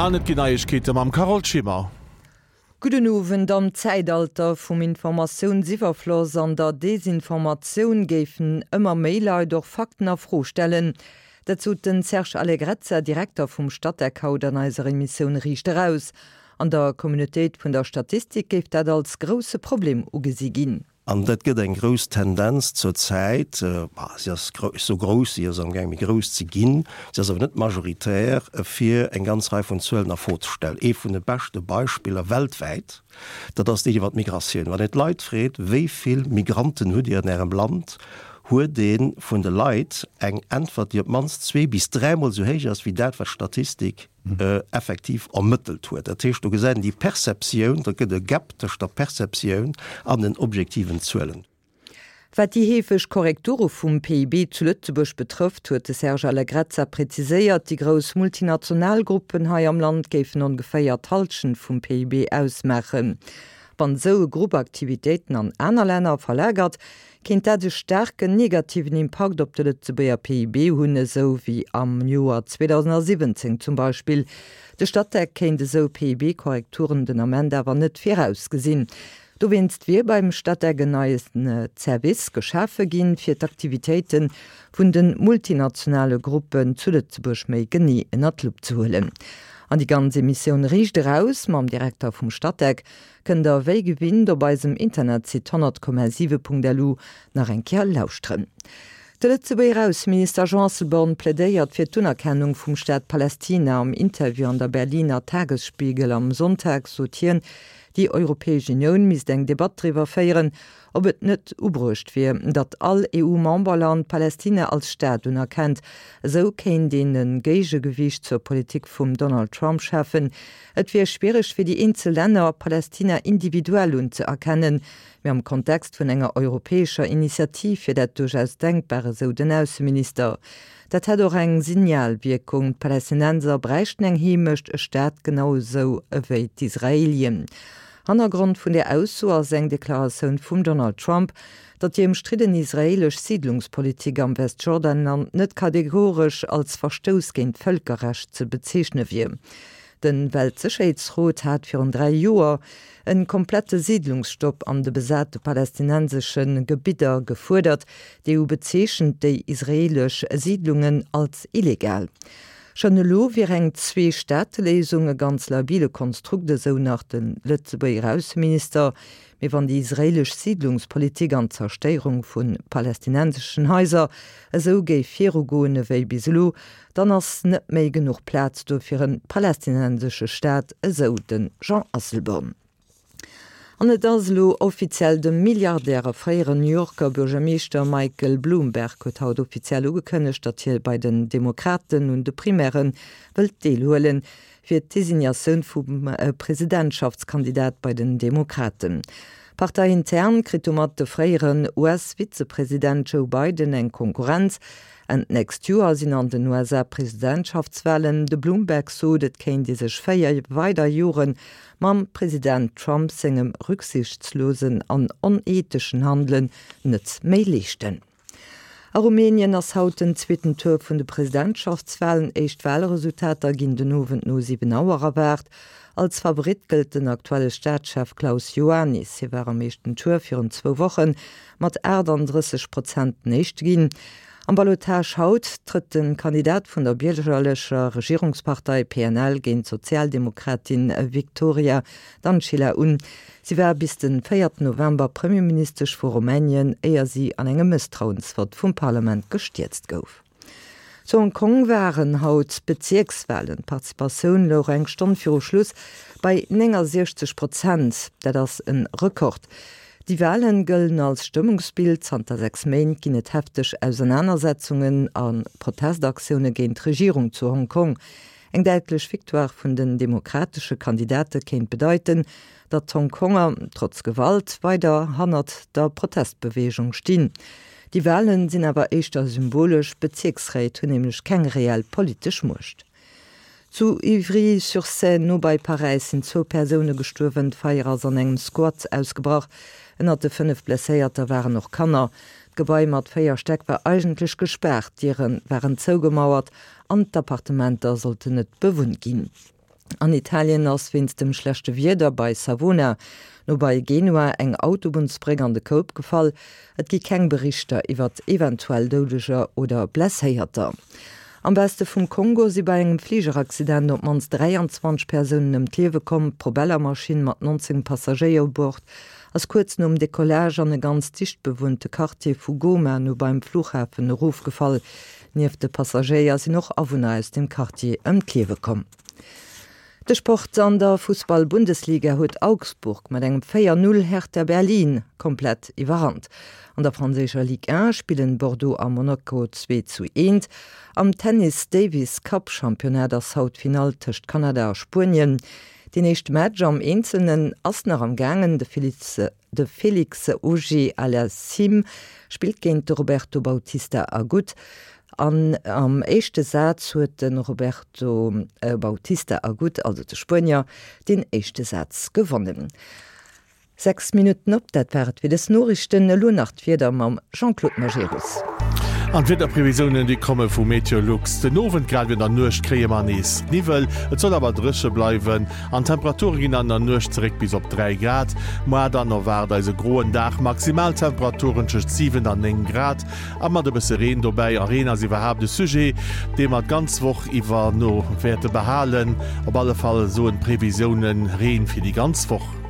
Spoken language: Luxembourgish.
An et ginn Neiegkeete mam Carole Schimmer. Gudden Owend. Am Zäitalter vum Informatiounsiwwerfloss an der Desinformatioun géifen ëmmer méi Leit och Fakten a Fro stellen. Dat sot den Serge Allegrezza, Direkter vum Statec haut an eiser Emissioun Riicht Eraus. An der Communautéit vun der Statistik géif dat als grousse Problem ugesi ginn. An dat gëtt eng grouss Tendenz zur Zäit, si ass sou grouss, si ass amgaang méi grouss ze ginn, si ass awer net majoritär, fir eng ganz Rei vun Zuelen a Fro ze stellen. Ee vun de beschte Beispiller weltwäit, dat ass deen iwwer d'Migratioun. Wann een d'Leit freet, wéi vill Migranten hutt Dir an Ärem Land, huet ee vun de Leit eng Äntwert, déi op d'mannst zwee bis dräimol esou héich ass wéi dat, wat d'Statistik effektiv ermëttelt huet. Dat heescht, do gesäit een déi Perceptioun, da gëtt e Gap tëscht der Perceptioun an den objektiven Zuelen. Wat déi heefeg Korrekture vum PIB zu Lëtzebuerg betrëfft, huet de Serge Allegrezza präziséiert, déi grouss multinational Gruppen hei am Land géifen ongeféier d'Hallschent vum PIB ausmaachen. Wann esou e Grupp Aktivitéiten an aner Länner verlagert, kéint dat e staarken negativen Impakt op de Lëtzebuerger PIB hunn, esou wéi am Joer 2017 zum Beispill. De Statec kéint esou PIB-Korrekturen den Ament awer net virausgesinn. Dowéinst wier beim Statec en neie Service geschafe ginn, fir d'Aktivitéite vun de multinationale Gruppen zu Lëtzebuerg méi genee ënner d'Lupp ze huelen. An déi ganz Emissioun Riicht eraus mam Direkter vum Statec Kënnt der wéi gewinnt op eisem Internetsite 100,7.lu nach eng Kéier lauschteren. De Lëtzebuerger Ausseminister Jean Asselborn plädéiert fir d'Unerkennung vum Staat Palästina. Am Interview an der Berliner Tagesspiegel am Sonntag sot hien, déi Europäesch Unioun misst eng Debatt driwwer féieren, ob et net ubruecht wier, datt all EU-Memberland Palästina als Staat unerkennt. Esou kéint een e Géigegewiicht zur Politik vum Donald Trump schafen. Et wier schwiereg fir déi eenzel Länner, Palästina individuell unzëerkennen, mee am Kontext vun enger europäescher Initiativ wier dat duerchaus denkbar, esou den Ausseminister. Dat hätt och eng Signalwierkung, D'Palästinenser bräichten eng Heemecht, e Staat, genau esou ewéi d'Israelien. Hannergrond vun där Ausso ass eng Deklaratioun vum Donald Trump, datt déi ëmstridden israeelesch Siidlungspolitik am Westjordanland net kategoresch als Verstouss géint d'Vëlkerrecht ze bezeechne wier. De Weltsécherheetsrot hat virun 3 Joer e komplette Siidlungsstopp an de besate palästinensesche Gebidder gefuerdert. D'EU bezeechent déi israeelesch Siidlungen als illegal. Schonn elo wier eng Zwee-Staate-Léisung e ganz labile Konstrukt, esou nach de Lëtzebuerger Ausseminister. Mee wann déi israeelesch Siidlungspolitik an d'Zerstéierung vu palästinenseschen Haiser esou géif virugoen ewéi bis elo, Dann ass net méi genuch Plaz do fir en palästinensesche Staat, esou de Jean Asselborn. An et ass elo offiziell, de Milliardär a fréieren New Yorker Buergermeeschter Michael Bloomberg huet haut offiziell ugekënnegt, datt hie bei den Demokraten un de Primairë wëllt deelhuelen, fir d'Designatioun vum Presidentschaftskandidat bei den Demokraten. Parteiintern kritt domat de fréieren US-Vizepresident Joe Biden eng Konkurrenz. Enn d'nächst Joer sinn an den USA Presidentschaftswalen. De Bloomberg sot, et kéint ee sech 4 weider Jore mam President Trump sengem rücksichtslosen an onetheschen Handelen net méi leeschten. A Rumänien ass haut den zweeten Tour vun de Presidentschaftswalen. Éischt Walresultater ginn den Owend no 7 Auer erwaart. Als Favorit gëllt den aktuelle Staatschef Klaus Iohannis. Hie war am éischten Tour virun zwou Woche mat 38 Prozent den Éischte ginn. Am Ballottage haut trëtt de Kandidat vun der biergerlecher Regierungspartei PNL géint d'Sozialdemokratin Victoria Dancila un. Si war bis de 4 November Premierministesch vu Rumänien, éier si an engem Mësstrauensvott vum Parlament gestierzt gouf. Zu Hong Kong waren haut d'Bezierkswalen. D'Participatioun louch eng Stonn viru Schluss bei 69 Prozent. Dat ass e Rekord. Déi Walen gëllen als Stëmmungsbild. Zanter 6 Méint ginn et hefteg Ausernanersetzungen a Protestaktioune géint d'Regierung zu Hong Kong. Eng däitlech Victoire vun den demokratesche Kandidate kéint bedeiten, datt d'Hongkonger, trotz Gewalt, weider hannert der Protestbeweegung stinn. Déi Walen sinn awer éischter symbolesch, d'Bezierksréit hunn nämlech keng reell politesch Muecht. Zu Ivry-sur-Seine, no bei Paräis, sinn zwou Persoune gestuerwen. D'Feier ass an engem Squat ausgebrach. Ënnert de 5 Blesséierter waren och Kanner. D'Gebai mat 4 Stäck war eigentlech gespaart, d'Diere waren zougemauert an d'Appartementer sollten net bewunnt ginn. An Italien ass wéinst dem schlechte Wieder bei Savona, no bei Genua, eng Autobunnsbréck an de Koup gefall. Et gi keng Berichter iwwert eventuell Doudeger oder Blesséierter. Am Weste vum Kongo si bei engem Fligeraccident op d'mannst 23 Persounen ëm d'Liewe komm. D'Propellermaschinn mat 19 Passagéier u Bord ass kuerz nom Decollage an e ganz dicht bewunnte Quartier vu Goma no beim Flughafen erofgefall. Nieft de Passagéier sinn och Awunner aus dem Quartier ëm d'Liewe komm. De Sport, An der Fussball-Bundesliga huet Augsburg mat engem 4, 0 Hertha Berlin komplett iwwerrannt. An der franséischer Ligue 1 spillen Bordeaux a Monaco 2 zu 1. Am Tennis Davis Cup Championnat ass haut d'Finall tëscht Kanada a Spuenien. Deen éischte Match am Eenzelnen ass nach am gaangen. De Félix De Félix Auger-Aliassime spillt géint de Roberto Bautista Agut an am éischte Saz huet de Roberto Bautista Agut, also de Spuenier, deen éischte Saz gewonnen. 6 Minutten op, dat war et fir dës Noriichten. Elo nach d'Wieder mam Jean-Claude Majerus. An d'Wiederprevisiounen, déi komme vu Meteolux. Den Owend grad ewéi an der Nuecht kréie mer nees Niwwel, et soll awer dréche bleiwen an d'Temperature ginn an der Nuecht zeréck bis op 3 Grad. Moar dann erwaart eis e groen Dag, Maximaltemperaturen tëscht 7 an 9 Grad a mat e bësse Reen dobäi. A Reen ass iwwerhaapt e Sujet, dee mer d'ganz Woch iwwer no wäerte behalen. Op alle Fall soen d'Previsiounen Reen fir déi ganz Woch.